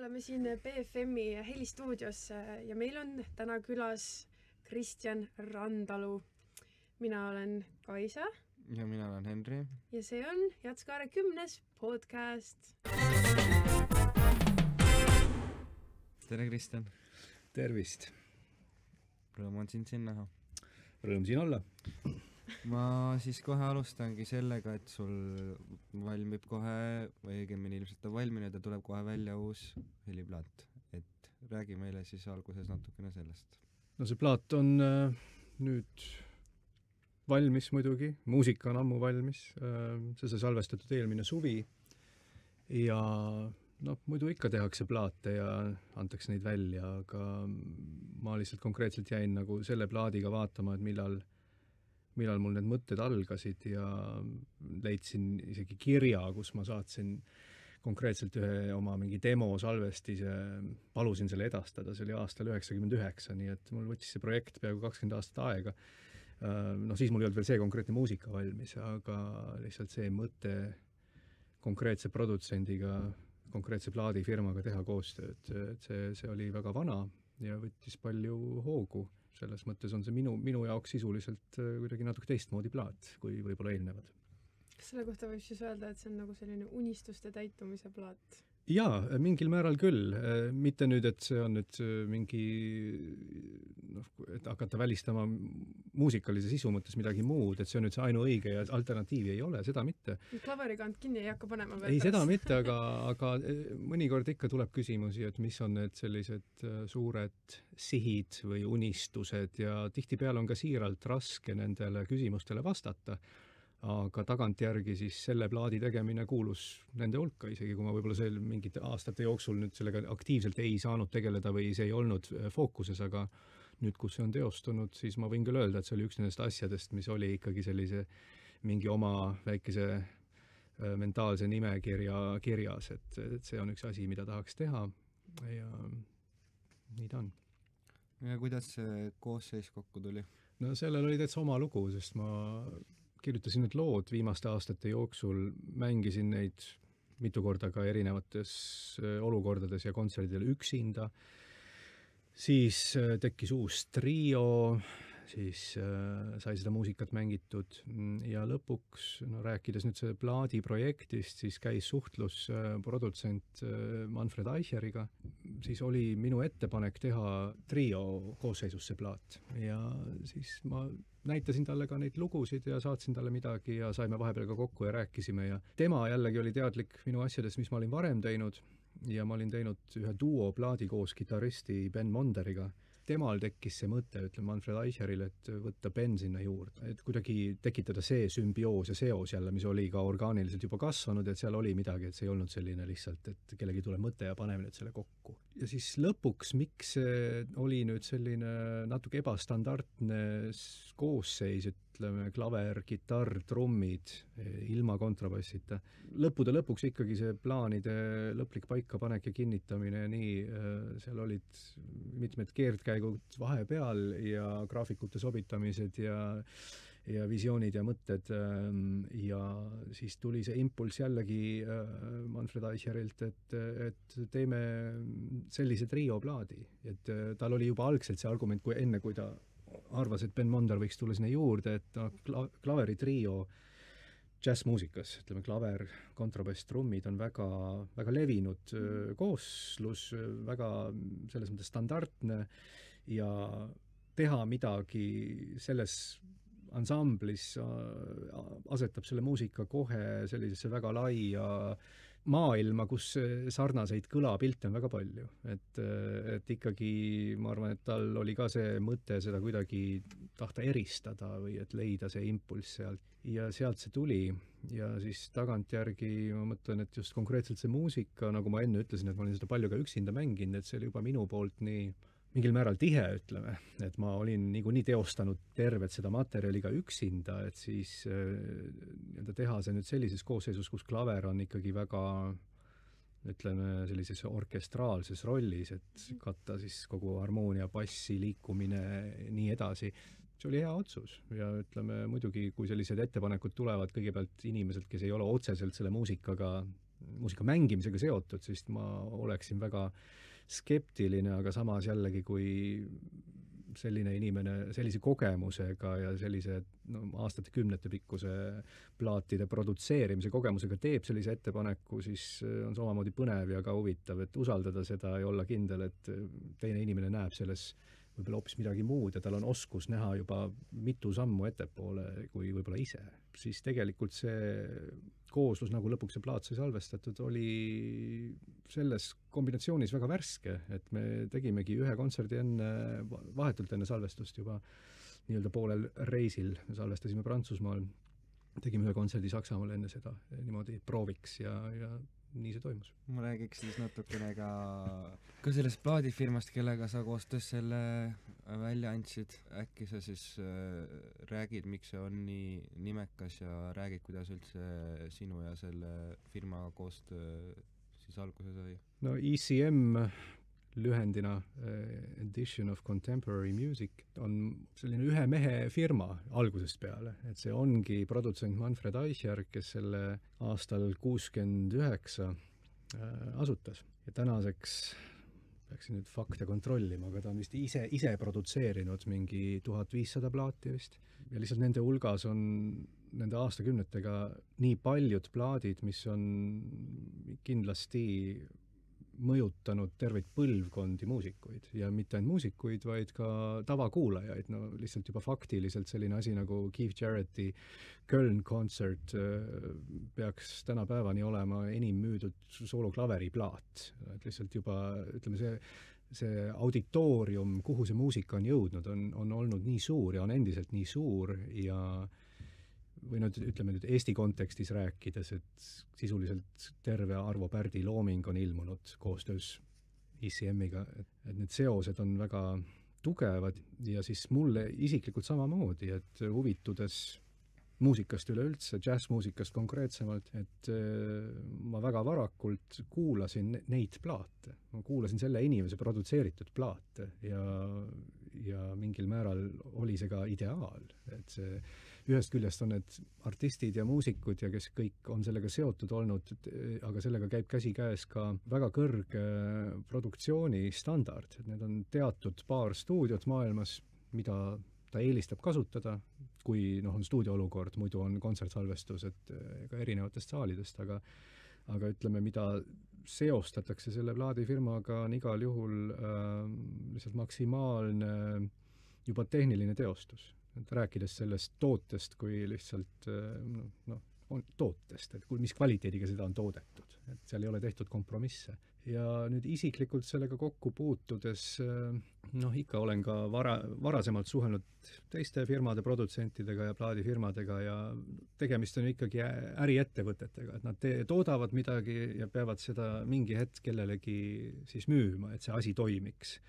oleme siin BFM-i helistuudios ja meil on täna külas Kristjan Randalu. Mina olen Kaisa. Ja mina olen Henri. Ja see on Jatskaare 10. podcast. Tere, Kristjan. Tervist. Rõõm on sind siin näha. Rõõm siin olla. Ma siis kohe alustangi sellega, et sul valmib kohe, või õigemini ilmselt on valminud ja tuleb kohe välja uus heliplaat. Et räägi meile siis alguses natukene sellest. No see plaat on nüüd valmis muidugi. Muusika on ammu valmis. See sai salvestatud eelmine suvi. Ja muidu ikka tehakse plaate ja antakse neid välja, aga ma lihtsalt konkreetselt jäin nagu selle plaadiga vaatama, et millal mul need mõtted algasid ja leidsin isegi kirja, kus ma saatsin konkreetselt ühe oma mingi demo salvestise, palusin selle edastada, see oli aastal 99, nii et mul võttis see projekt peaaegu 20 aastat aega. Siis mul ei olnud veel see konkreetne muusika valmis, aga lihtsalt see mõte konkreetse produtsendiga, konkreetse plaadifirmaga teha koostööd, et see oli väga vana ja võttis palju hoogu. Selles mõttes on see minu jaoks sisuliselt kuidagi natuke teistmoodi plaat, kui võib-olla eelnevad. Kas selle kohta võib siis öelda, et see on nagu selline unistuste täitumise plaat? Jaa, mingil määral küll. Mitte nüüd, et see on nüüd mingi, et hakata välistama muusikalise sisu mõttes midagi muud, et see on nüüd see ainuõige ja alternatiivi ei ole, seda mitte. Klaverikant kinni ei hakka panema veel ei, seda mitte, aga mõnikord ikka tuleb küsimusi, et mis on need sellised suured sihid või unistused ja tihtipeale on ka siiralt raske nendele küsimustele vastata. Aga tagantjärgi siis selle plaadi tegemine kuulus nende hulka, isegi kui ma võib-olla seal mingite aastate jooksul nüüd sellega aktiivselt ei saanud tegeleda või see ei olnud fookuses, aga nüüd, kus see on teostunud, siis ma võin küll öelda, et see oli üks nendest asjadest, mis oli ikkagi sellise mingi oma väikese mentaalse nimekirja kirjas, et see on üks asi, mida tahaks teha ja nii ta on. Ja kuidas see koosseis kokku tuli? No sellel oli täitsa oma lugu, sest ma kirjutasin need lood viimaste aastate jooksul, mängisin neid mitu korda ka erinevates olukordades ja kontserdidel üksinda. Siis tekkis uus trio, siis sai seda muusikat mängitud ja lõpuks, rääkides nüüd see plaadi projektist, siis käis suhtlus produtsent Manfred Eicheriga. Siis oli minu ettepanek teha trio koosseisus see plaat ja siis ma näitasin talle ka neid lugusid ja saatsin talle midagi ja saime vahepeal ka kokku ja rääkisime ja tema jällegi oli teadlik minu asjadest, mis ma olin varem teinud ja ma olin teinud ühe duo plaadi koos kitaristi Ben Monderiga. Temal tekkis see mõte, ütleme Manfred Eicheril, et võtta Ben sinna juurde, et kuidagi tekitada see sümbioos ja seos jälle, mis oli ka orgaaniliselt juba kasvanud, et seal oli midagi, et see ei olnud selline lihtsalt, et kellegi tuleb mõte ja paneme nüüd selle kokku. Ja siis lõpuks, miks see oli nüüd selline natuke ebastandardne koosseis, ütleme klaver, kitarr, trummid, ilma kontrabassita. Lõppude lõpuks ikkagi see plaanide lõplik paikapanek ja kinnitamine ja nii, seal olid mitmed keerdkäigud vahepeal ja graafikute sobitamised ja visioonid ja mõtted ja siis tuli see impulss jällegi Manfred Eicherilt, et teeme sellise trio plaadi, et tal oli juba algselt see argument, kui ta arvas, et Ben Monder võiks tulla sinna juurde, et klaveri trio džässmuusikas, ütleme klaver, kontrabass, trummid on väga, väga levinud kooslus, väga selles mõttes standardne ja teha midagi selles ansamblis asetab selle muusika kohe sellisesse väga laia maailma, kus sarnaseid kõlapilte on väga palju. Et ikkagi, ma arvan, et tal oli ka see mõte seda kuidagi tahta eristada või et leida see impulss sealt. Ja sealt see tuli. Ja siis tagantjärgi ma mõtlen, et just konkreetselt see muusika, nagu ma enne ütlesin, et ma olin seda palju ka üksinda mänginud, et see oli juba minu poolt nii mingil määral tihe, ütleme, et ma olin niikuinii teostanud tervet seda materjali ka üksinda, et siis teha see nüüd sellises koosseisus, kus klaver on ikkagi väga, ütleme, sellises orkestraalses rollis, et katta siis kogu harmoonia, bassi, liikumine, nii edasi. See oli hea otsus ja ütleme, muidugi, kui sellised ettepanekud tulevad kõigepealt inimeselt, kes ei ole otseselt selle muusikaga muusika mängimisega seotud, siis ma oleksin väga skeptiline, aga samas jällegi, kui selline inimene sellise kogemusega ja sellise aastate kümnete pikkuse plaatide produtseerimise kogemusega teeb sellise ettepaneku, siis on samamoodi põnev ja ka huvitav, et usaldada seda ja olla kindel, et teine inimene näeb selles võib-olla hoopis midagi muud ja tal on oskus näha juba mitu sammu ettepoole kui võib-olla ise. Siis tegelikult see kooslus, nagu lõpuks see plaat sai salvestatud, oli selles kombinatsioonis väga värske, et me tegimegi ühe kontserdi vahetult enne salvestust juba nii-öelda poolel reisil, me salvestasime Prantsusmaal, tegime ühe kontserdi Saksamaal enne seda niimoodi prooviks ja nii see toimus. Ma räägiks siis natukene ka sellest plaadifirmast, kellega sa koostöös selle välja andsid. Äkki sa siis räägid, miks see on nii nimekas ja räägid, kuidas üldse sinu ja selle firma koostöö siis alguse sai? No ECM lühendina Edition of Contemporary Music on selline ühe mehe firma algusest peale, et see ongi produtsent Manfred Eicher, kes selle aastal 69 asutas ja tänaseks peaksin nüüd fakte kontrollima, aga ta on vist ise produtseerinud mingi 1500 plaati vist ja lihtsalt nende hulgas on nende aastakümnetega nii paljud plaadid, mis on kindlasti mõjutanud terveid põlvkondi muusikuid ja mitte ainult muusikuid, vaid ka tavakuulajaid. No lihtsalt juba faktiliselt selline asi nagu Keith Jarretti Köln kontsert peaks tänapäevani olema enim müüdud sooloklaveriplaat. Et lihtsalt juba, ütleme, see auditoorium, kuhu see muusika on jõudnud, on olnud nii suur ja on endiselt nii suur ja või ütleme nüüd Eesti kontekstis rääkides, et sisuliselt terve Arvo Pärdi looming on ilmunud koostöös ECM-iga, et need seosed on väga tugevad ja siis mulle isiklikult samamoodi, et huvitudes muusikast üleüldse, džässmuusikast konkreetsemalt, et ma väga varakult kuulasin neid plaate. Ma kuulasin selle inimese produtseeritud plaate ja mingil määral oli see ka ideaal, et see ühest küljest on need artistid ja muusikud ja kes kõik on sellega seotud olnud, aga sellega käib käsikäes ka väga kõrge produktsioonistandard, et need on teatud paar stuudiot maailmas, mida ta eelistab kasutada, kui on stuudioolukord, muidu on kontsertsalvestused ka erinevatest saalidest, aga ütleme, mida seostatakse selle plaadifirmaga on igal juhul lihtsalt maksimaalne juba tehniline teostus. Et rääkides sellest tootest kui lihtsalt tootest, et mis kvaliteediga seda on toodetud, et seal ei ole tehtud kompromisse. Ja nüüd isiklikult sellega kokku puutudes, ikka olen ka varasemalt suhelnud teiste firmade produtsentidega ja plaadifirmadega ja tegemist on ikkagi äriettevõtetega, et nad toodavad midagi ja peavad seda mingi hetk kellelegi siis müüma, et see asi toimiks.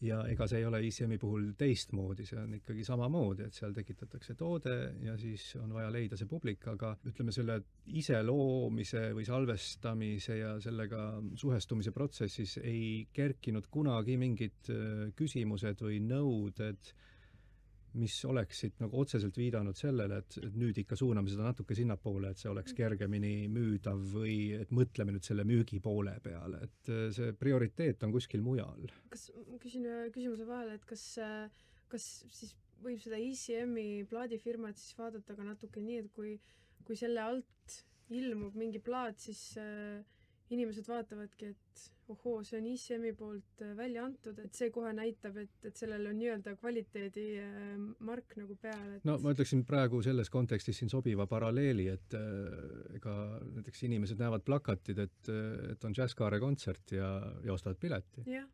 Ja ega see ei ole ECM-i puhul teistmoodi, see on ikkagi samamoodi, et seal tekitatakse toode ja siis on vaja leida see publik, aga ütleme selle iseloomise või salvestamise ja sellega suhestumise protsessis ei kerkinud kunagi mingid küsimused või nõuded, mis oleksid nagu otseselt viidanud sellele, et nüüd ikka suuname seda natuke sinnapoole, et see oleks kergemini müüdav või et mõtleme nüüd selle müügi poole peale, et see prioriteet on kuskil mujal. Kas küsin küsimuse vahele, et kas siis võib seda ECM-i plaadifirmat siis vaadata ka natuke nii, et kui selle alt ilmub mingi plaat, siis inimesed vaatavadki, et ohoo, see on ECM-i poolt välja antud, et see kohe näitab, et sellel on nii-öelda kvaliteedi mark nagu peal. No ma ütleksin praegu selles kontekstis siin sobiva paralleeli, et ega näiteks inimesed näevad plakatid, et on Jazzkaare kontsert ja ostavad pileti. Yeah.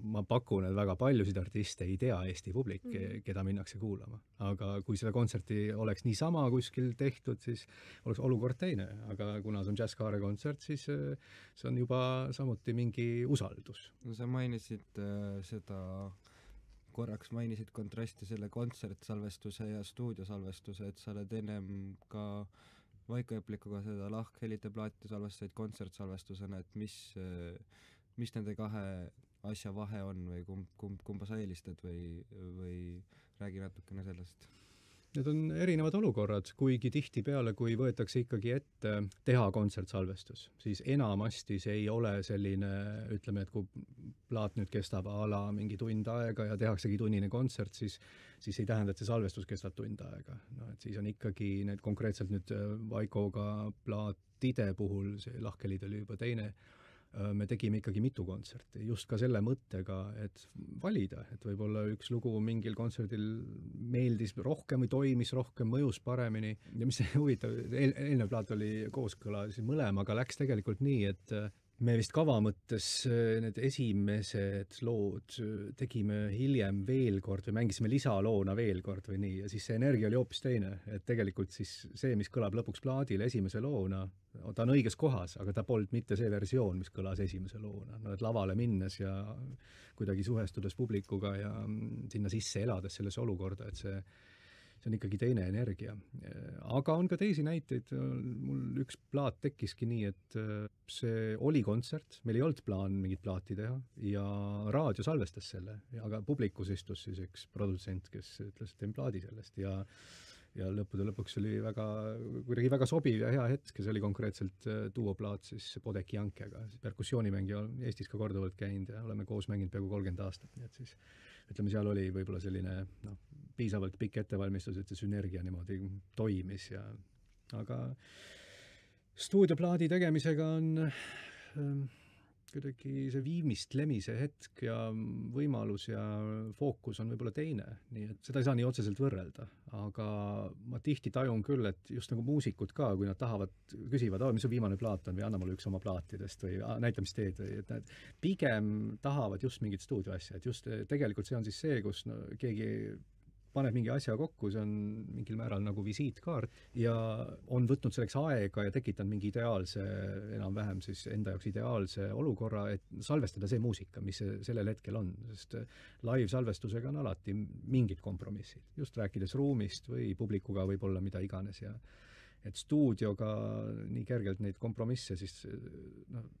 Ma pakun, et väga paljusid artiste ei tea Eesti publik, keda minnakse kuulama. Aga kui seda kontserti oleks niisama kuskil tehtud, siis oleks olukord teine. Aga kuna see on Jazzkaare kontsert, siis see on juba samuti mingi usaldus. No sa mainisid korraks mainisid kontrasti selle kontsertsalvestuse ja stuudiosalvestuse, et sa oled ennem ka Vaiko Eplikuga seda lahkhelite plaati salvestasid kontsertsalvestusena, et mis nende kahe asja vahe on või kumba sa eelistad või räägi natukene sellest? need on erinevad olukorrad, kuigi tihtipeale, kui võetakse ikkagi ette teha kontsertsalvestus, siis enamasti see ei ole selline, ütleme, et kui plaat nüüd kestab a la mingi tund aega ja tehaksegi tunnine kontsert, siis ei tähenda, et see salvestus kestab tund aega. No, et siis on ikkagi need konkreetselt nüüd Vaikoga plaatide puhul, see Lahkhelid oli juba teine, me tegime ikkagi mitu kontserti, just ka selle mõttega, et valida, et võib-olla üks lugu mingil kontserdil meeldis rohkem või toimis rohkem, mõjus paremini. Ja mis huvitav, eelnev plaat oli kooskõla mõlemaga, läks tegelikult nii, et me vist kava mõttes need esimesed lood tegime hiljem veel kord või mängisime lisaloona veel kord või nii, ja siis see energia oli hoopis teine, et tegelikult siis see, mis kõlab lõpuks plaadil esimese loona, ta on õiges kohas, aga ta polnud mitte see versioon, mis kõlas esimese loona. No, et lavale minnes ja kuidagi suhestudes publikuga ja sinna sisse elades sellesse olukorda, et see on ikkagi teine energia. Aga on ka teisi näiteid. Mul üks plaat tekkiski nii, et see oli kontsert, meil ei olnud plaan mingit plaati teha ja raadio salvestas selle, aga publikus istus siis üks produtsent, kes ütles, et teen plaadi sellest ja lõppude lõpuks oli kuidagi väga sobiv ja hea hetk, see oli konkreetselt duoplaat siis Podeki Jankega, perkussioonimängija Eestis ka korduvalt käinud ja oleme koos mänginud peaaegu 30 aastat, nii et siis ütleme, seal oli võib-olla selline piisavalt pikk ettevalmistus, et see sünergia niimoodi toimis aga stuudioplaadi tegemisega on kuidagi see viimistlemise hetk ja võimalus ja fookus on võib-olla teine, nii et seda ei saa nii otseselt võrrelda, aga ma tihti tajun küll, et just nagu muusikud ka, kui nad küsivad, mis su viimane plaat on või anna mulle üks oma plaatidest või näita, mis teed, või et nad pigem tahavad just mingit stuudioasja, et just tegelikult see on siis see, kus keegi paneb mingi asja kokku, see on mingil määral nagu visiitkaart ja on võtnud selleks aega ja tekitanud mingi ideaalse, enam-vähem siis enda jaoks ideaalse olukorra, et salvestada see muusika, mis sellel hetkel on, sest live-salvestusega on alati mingid kompromissid, just rääkides ruumist või publikuga võib-olla mida iganes ja et stuudioga nii kergelt neid kompromisse, siis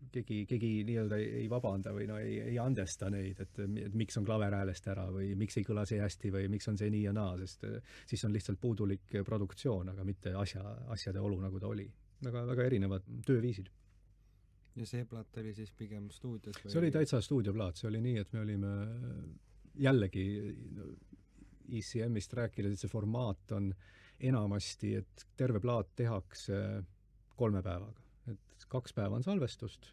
keegi nii-öelda ei vabanda või ei andesta neid, et miks on klaver häälest ära või miks ei kõla see hästi või miks on see nii ja naa, sest siis on lihtsalt puudulik produktsioon, aga mitte asjade olu, nagu ta oli. Väga erinevad tööviisid. Ja see plaat oli siis pigem stuudios? See oli täitsa stuudioplaat, see oli nii, et me olime jällegi ECM-ist rääkides, et see formaat on enamasti, et terve plaat tehakse 3 päevaga. Et 2 päeva on salvestust,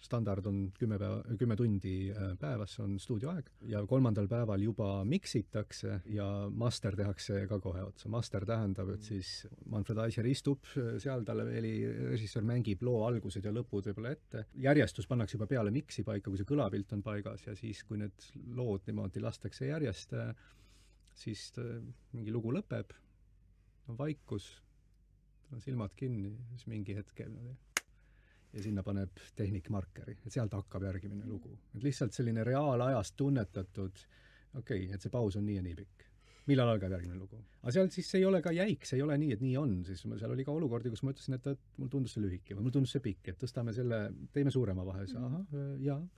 standard on 10 tundi päevas on stuudioaeg ja 3. päeval juba miksitakse ja master tehakse ka kohe otsa. Master tähendab, et siis Manfred Eicher istub seal, talle režissöör mängib loo algused ja lõpud võib-olla ette. Järjestus pannakse juba peale miksi paika, kui see kõlapilt on paigas ja siis, kui need lood niimoodi lastakse järjest, siis mingi lugu lõpeb, on vaikus, on silmad kinni, siis mingi hetkel ja sinna paneb tehnik markeri, et sealt hakkab järgimine lugu. Et lihtsalt selline reaalajast tunnetatud, et see paus on nii ja nii pikk. Millal algab järgmine lugu? Aga seal siis ei ole ka jäik, see ei ole nii, et nii on. Siis seal oli ka olukordi, kus ma ütlesin, et mul tundus see lühike või mul tundus see pikk, et tõstame selle, teeme suurema vahe.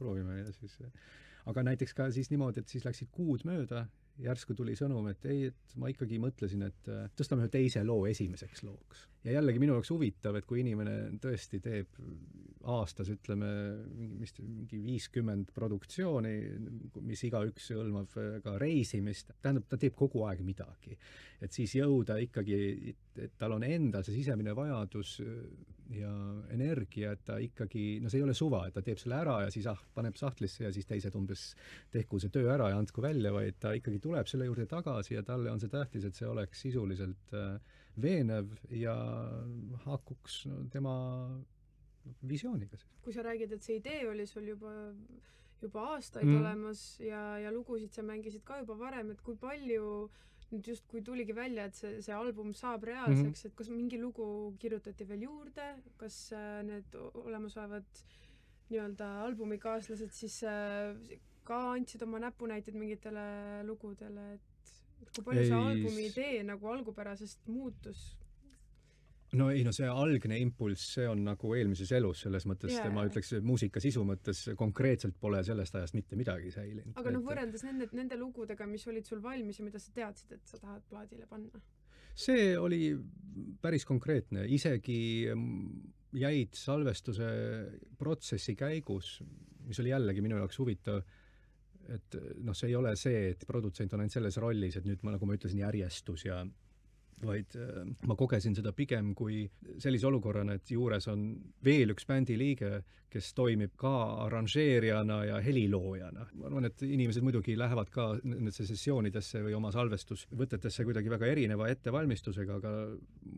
Proovime. Ja siis. Aga näiteks ka siis niimoodi, et siis läksid kuud mööda, järsku tuli sõnum, et et ma ikkagi mõtlesin, et tõstame ühe teise loo esimeseks looks. Ja jällegi minu jaoks huvitav, et kui inimene tõesti teeb aastas, ütleme, mingi 50 produktsiooni, mis igaüks hõlmab ka reisimist, tähendab, ta teeb kogu aeg midagi. Et siis jõuda ikkagi, et tal on endal see sisemine vajadus ja energia, et ta ikkagi, see ei ole suva, et ta teeb selle ära ja siis paneb sahtlisse ja siis teised umbes tehku see töö ära ja andku välja, vaid ta ikkagi tuleb selle juurde tagasi ja talle on see tähtis, et see oleks sisuliselt veenev ja haakuks tema visiooniga. Kui sa räägid, et see idee oli sul juba aastaid olemas ja lugusid sa mängisid ka juba varem, et kui palju nüüd just kui tuligi välja, et see album saab reaalseks, et kas mingi lugu kirjutati veel juurde, kas need olemasolevad nii-öelda albumikaaslased siis ka andsid oma näpunäited mingitele lugudele, et kui palju see albumi idee nagu algupärasest muutus? See algne impulss, see on nagu eelmises elus selles mõttes, ma ütleks, muusika sisu mõttes konkreetselt pole sellest ajast mitte midagi säilinud. Aga võrreldes nende lugudega, mis olid sul valmis ja mida sa teadsid, et sa tahad plaadile panna? see oli päris konkreetne, isegi jäid salvestuse protsessi käigus, mis oli jällegi minu jaoks huvitav, et noh, see ei ole see, et produtsent on ainult selles rollis, et nüüd ma, nagu ma ütlesin, järjestus ja vaid ma kogesin seda pigem kui sellise olukorrana, et juures on veel üks bändi liige, kes toimib ka arranžeerijana ja heliloojana. Ma arvan, et inimesed muidugi lähevad ka nendesse sessioonidesse või oma salvestusvõtetesse kuidagi väga erineva ettevalmistusega, aga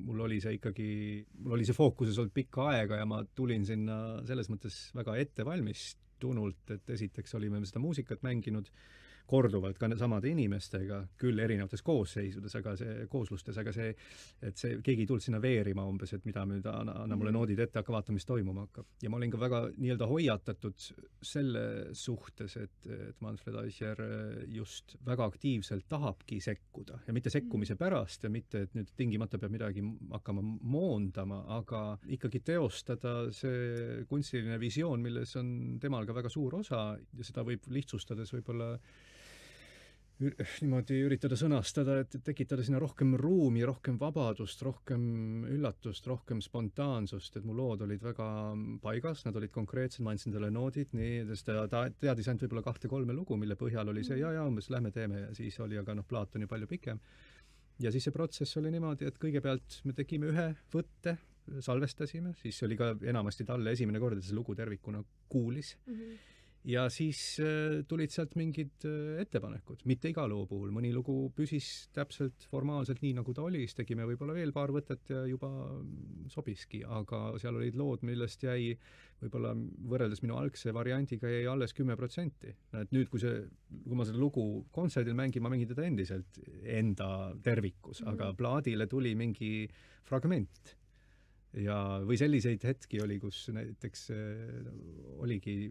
mul oli see fookuses olnud pikka aega ja ma tulin sinna selles mõttes väga ettevalmistunult, et esiteks olime seda muusikat mänginud korduvalt ka samade inimestega, küll erinevates kooslustes, aga see, et see, keegi ei tulnud sinna veerima umbes, et mida nüüd anna mulle noodid ette, hakka vaatama, mis toimuma hakkab. Ja ma olin ka väga nii-öelda hoiatatud selle suhtes, et Manfred Eicher just väga aktiivselt tahabki sekkuda ja mitte sekkumise pärast ja mitte, et nüüd tingimata peab midagi hakkama moondama, aga ikkagi teostada see kunstiline visioon, milles on temal ka väga suur osa ja seda võib lihtsustades võib-olla niimoodi üritada sõnastada, et tekitada sinna rohkem ruumi, rohkem vabadust, rohkem üllatust, rohkem spontaansust, et mu lood olid väga paigas, nad olid konkreetsed, ma andsin talle noodid, nii, sest ta teadis ainult võib-olla 2-3 lugu, mille põhjal oli see, ja umbes lähme teeme ja siis oli, aga plaat on ju palju pikem. Ja siis see protsess oli niimoodi, et kõigepealt me tegime ühe võtte, salvestasime, siis oli ka enamasti talle esimene kord, et see lugu tervikuna kuulis. Ja siis tulid sealt mingid ettepanekud, mitte iga loo puhul, mõni lugu püsis täpselt formaalselt nii, nagu ta oli, siis tegime võib-olla veel paar võtet ja juba sobiski, aga seal olid lood, millest jäi võib-olla võrreldes minu algse variandiga jäi alles 10%. Et nüüd, kui ma seda lugu kontserdil mängin, ma mängin teda endiselt enda tervikus, aga plaadile tuli mingi fragment. Ja või selliseid hetki oli, kus näiteks oligi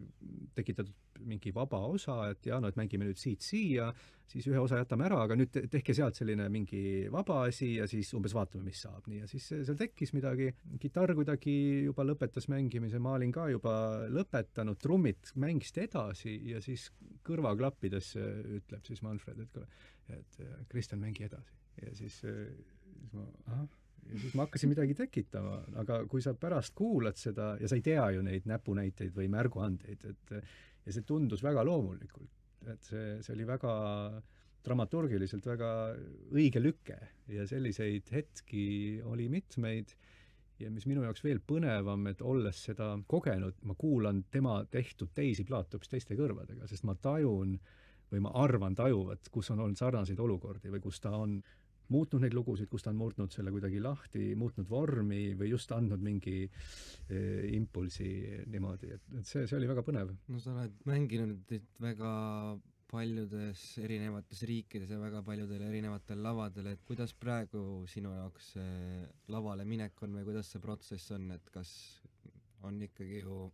tekitatud mingi vaba osa, et et mängime nüüd siia, siis ühe osa jätame ära, aga nüüd tehke sealt selline mingi vaba asi ja siis umbes vaatame, mis saab. Nii, ja siis seal tekkis midagi, kitarr kuidagi juba lõpetas mängimise, ma olin ka juba lõpetanud, trummid mängisid edasi ja siis kõrvaklappides ütleb siis Manfred, et Kristjan, mängi edasi. Ja siis ma, ja siis ma hakkasin midagi tekitama, aga kui sa pärast kuulad seda ja sa ei tea ju neid näpunäiteid või märguandeid, ja see tundus väga loomulikult, et see oli väga dramaturgiliselt väga õige lüke ja selliseid hetki oli mitmeid ja mis minu jaoks veel põnevam, et olles seda kogenud, ma kuulan tema tehtud teisi plaate hoopis teiste kõrvadega, sest ma tajun või ma arvan tajuvat, kus on olnud sarnaseid olukordi või kus ta on muutnud neid lugusid, kus ta on muutnud selle kuidagi lahti, muutnud vormi või just andnud mingi impulsi niimoodi, et see oli väga põnev. No sa oled mänginud väga paljudes erinevates riikides ja väga paljudel erinevatel lavadel, et kuidas praegu sinu jaoks lavale minek on või kuidas see protsess on, et kas on ikkagi ju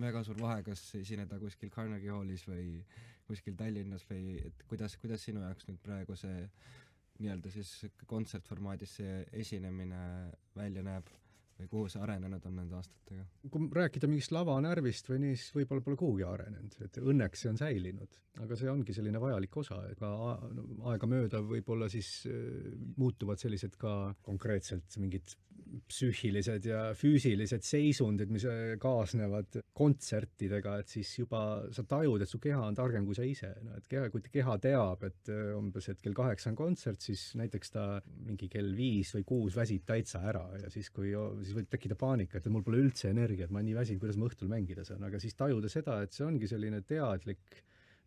väga suur vahe, kas esineda kuskil Carnegie Hallis või kuskil Tallinnas või et kuidas sinu jaoks nüüd praegu see nii-öelda siis kontsertformaadis see esinemine välja näeb või kuhu see arenenud on nende aastatega? Kui rääkida mingist lavanärvist või nii, siis võib-olla pole kuhugi arenenud, et õnneks see on säilinud, aga see ongi selline vajalik osa, et ka aega mööda võib-olla siis muutuvad sellised ka konkreetselt mingid psüühilised ja füüsilised seisundid, mis kaasnevad kontsertidega, et siis juba sa tajud, et su keha on targem kui sa ise. No, et kui keha teab, et umbes et kell 8 on kontsert, siis näiteks ta mingi kell 5 või 6 väsib täitsa ära ja siis võib tekkida paanika, et mul pole üldse energiat, ma olen nii väsinud, kuidas ma õhtul mängida saan, aga siis tajuda seda, et see ongi selline teadlik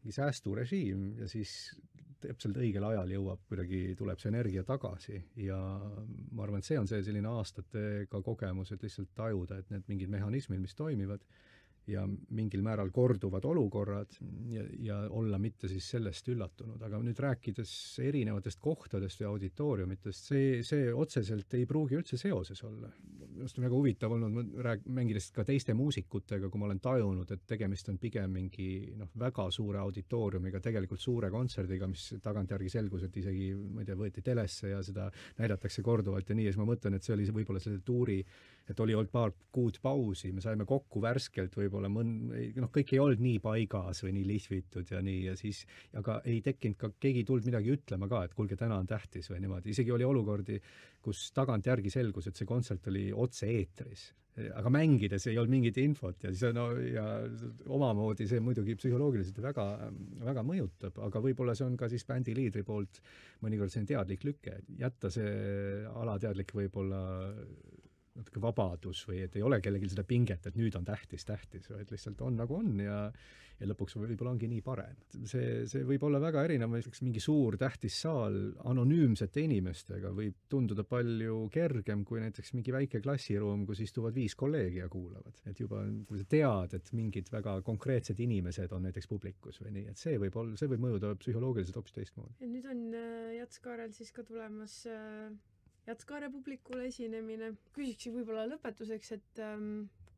säästurežiim ja siis täpselt õigel ajal tuleb see energia tagasi ja ma arvan, et see on see selline aastatega kogemus, et lihtsalt tajuda, et need mingid mehhanismid, mis toimivad ja mingil määral korduvad olukorrad ja olla mitte siis sellest üllatunud. Aga nüüd rääkides erinevatest kohtadest ja auditooriumitest, see otseselt ei pruugi üldse seoses olla. Just on väga huvitav olnud, mängides ka teiste muusikutega, kui ma olen tajunud, et tegemist on pigem mingi väga suure auditooriumiga, tegelikult suure kontserdiga, mis tagantjärgi selgus, et isegi, ma ei tea, võeti telesse ja seda näidatakse korduvalt ja nii, ja siis ma mõtlen, et see oli võib-olla selle tuuri, et oli olnud paar kuud pausi, me saime kokku värskelt võib-olla võib-olla kõik ei olnud nii paigas või nii lihvitud ja nii, ja siis, aga ei tekkinud ka, keegi ei tulnud midagi ütlema ka, et kuulge, täna on tähtis või niimoodi. Isegi oli olukordi, kus tagantjärgi selgus, et see kontsert oli otse-eetris. Aga mängides ei olnud mingit infot ja siis ja omamoodi see muidugi psühholoogiliselt väga, väga mõjutab, aga võib-olla see on ka siis bändi liidri poolt mõnikord selline teadlik lüke, jätta see alateadlik võib-olla natuke vabadus või et ei ole kellelgi seda pinget, et nüüd on tähtis, vaid lihtsalt on nagu on ja lõpuks võib-olla ongi nii parem. See võib olla väga erinev, mingi suur tähtis saal anonüümsete inimestega võib tunduda palju kergem kui näiteks mingi väike klassiruum, kus istuvad 5 kolleegi ja kuulavad. Et juba, kui sa tead, et mingid väga konkreetsed inimesed on näiteks publikus või nii, et see võib mõjuda psühholoogiliselt hoopis teistmoodi. Ja nüüd on Jatskaarel siis ka tulemas Jatskaare publikule esinemine. Küsiks võib-olla lõpetuseks, et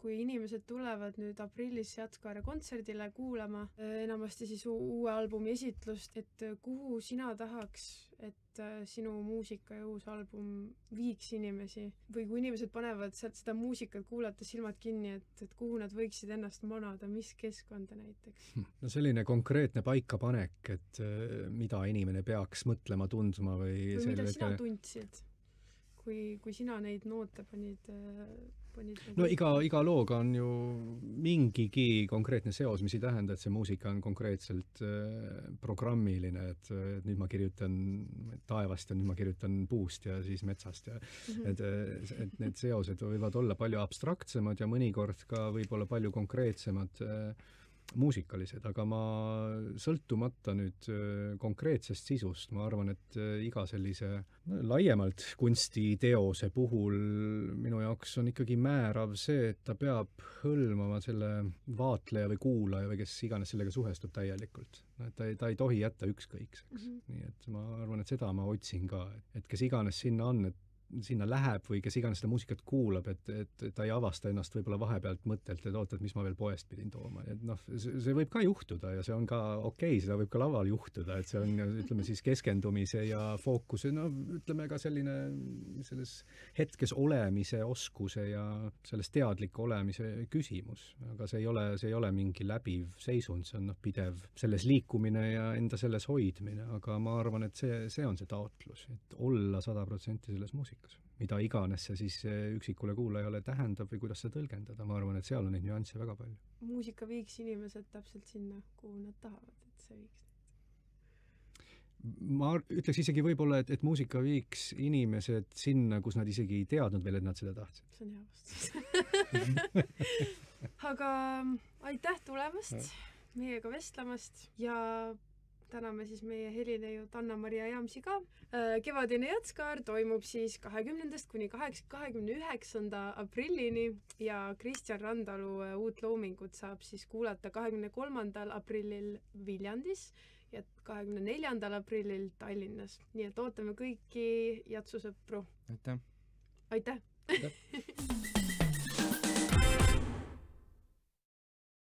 kui inimesed tulevad nüüd aprillis Jatskaare kontserdile kuulama enamasti siis uue albumi esitlust, et kuhu sina tahaks, et sinu muusika ja uus album viiks inimesi? Või kui inimesed panevad sealt seda muusikat kuulata silmad kinni, et kuhu nad võiksid ennast manada, mis keskkonda näiteks? No selline konkreetne paikapanek, et mida inimene peaks mõtlema, tundma või mida sina tundsid? Kui sina neid noote panid no iga looga on ju mingigi konkreetne seos, mis ei tähenda, et see muusika on konkreetselt programmiline, et nüüd ma kirjutan taevast ja nüüd ma kirjutan puust ja siis metsast ja et need seosed võivad olla palju abstraktsemad ja mõnikord ka võib-olla palju konkreetsemad muusikalised, aga ma sõltumata nüüd konkreetsest sisust, ma arvan, et iga sellise laiemalt kunstiteose puhul minu jaoks on ikkagi määrav see, et ta peab hõlmama selle vaatleja või kuulaja või kes iganes sellega suhestub täielikult. Ta ei tohi jätta ükskõikseks. Nii et ma arvan, et seda ma otsin ka, et kes iganes sinna on, et sinna läheb või kes iganes seda muusikat kuulab, et ta ei avasta ennast võib-olla vahepealt mõttelt, et oota, et mis ma veel poest pidin tooma. Et see võib ka juhtuda ja see on ka okei, seda võib ka laval juhtuda, et see on, ütleme siis keskendumise ja fookuse, ütleme ka selline selles hetkes olemise oskuse ja selles teadliku olemise küsimus. Aga see ei ole mingi läbiv seisund, see on pidev selles liikumine ja enda selles hoidmine, aga ma arvan, et see on see taotlus, et olla 100% selles muusikas. Mida iganes see siis üksikule kuulajale tähendab või kuidas seda tõlgendada, ma arvan, et seal on neid nüansse väga palju. Muusika viiks inimesed täpselt sinna, kuhu nad tahavad, et see viiks. Ma ütleks isegi võib-olla, et muusika viiks inimesed sinna, kus nad isegi ei teadnud veel, et nad seda tahtsid. See on hea vastus. Aga aitäh tulemast, meiega vestlemast ja täname siis meie helineiud Anna-Maria Jaamsi ka. Kevadine Jatskaar toimub siis 20. kuni 29. aprillini ja Kristjan Randalu uut loomingut saab siis kuulata 23. aprillil Viljandis ja 24. aprillil Tallinnas. Nii et ootame kõiki jatsusõpru. Aitäh! Aitäh!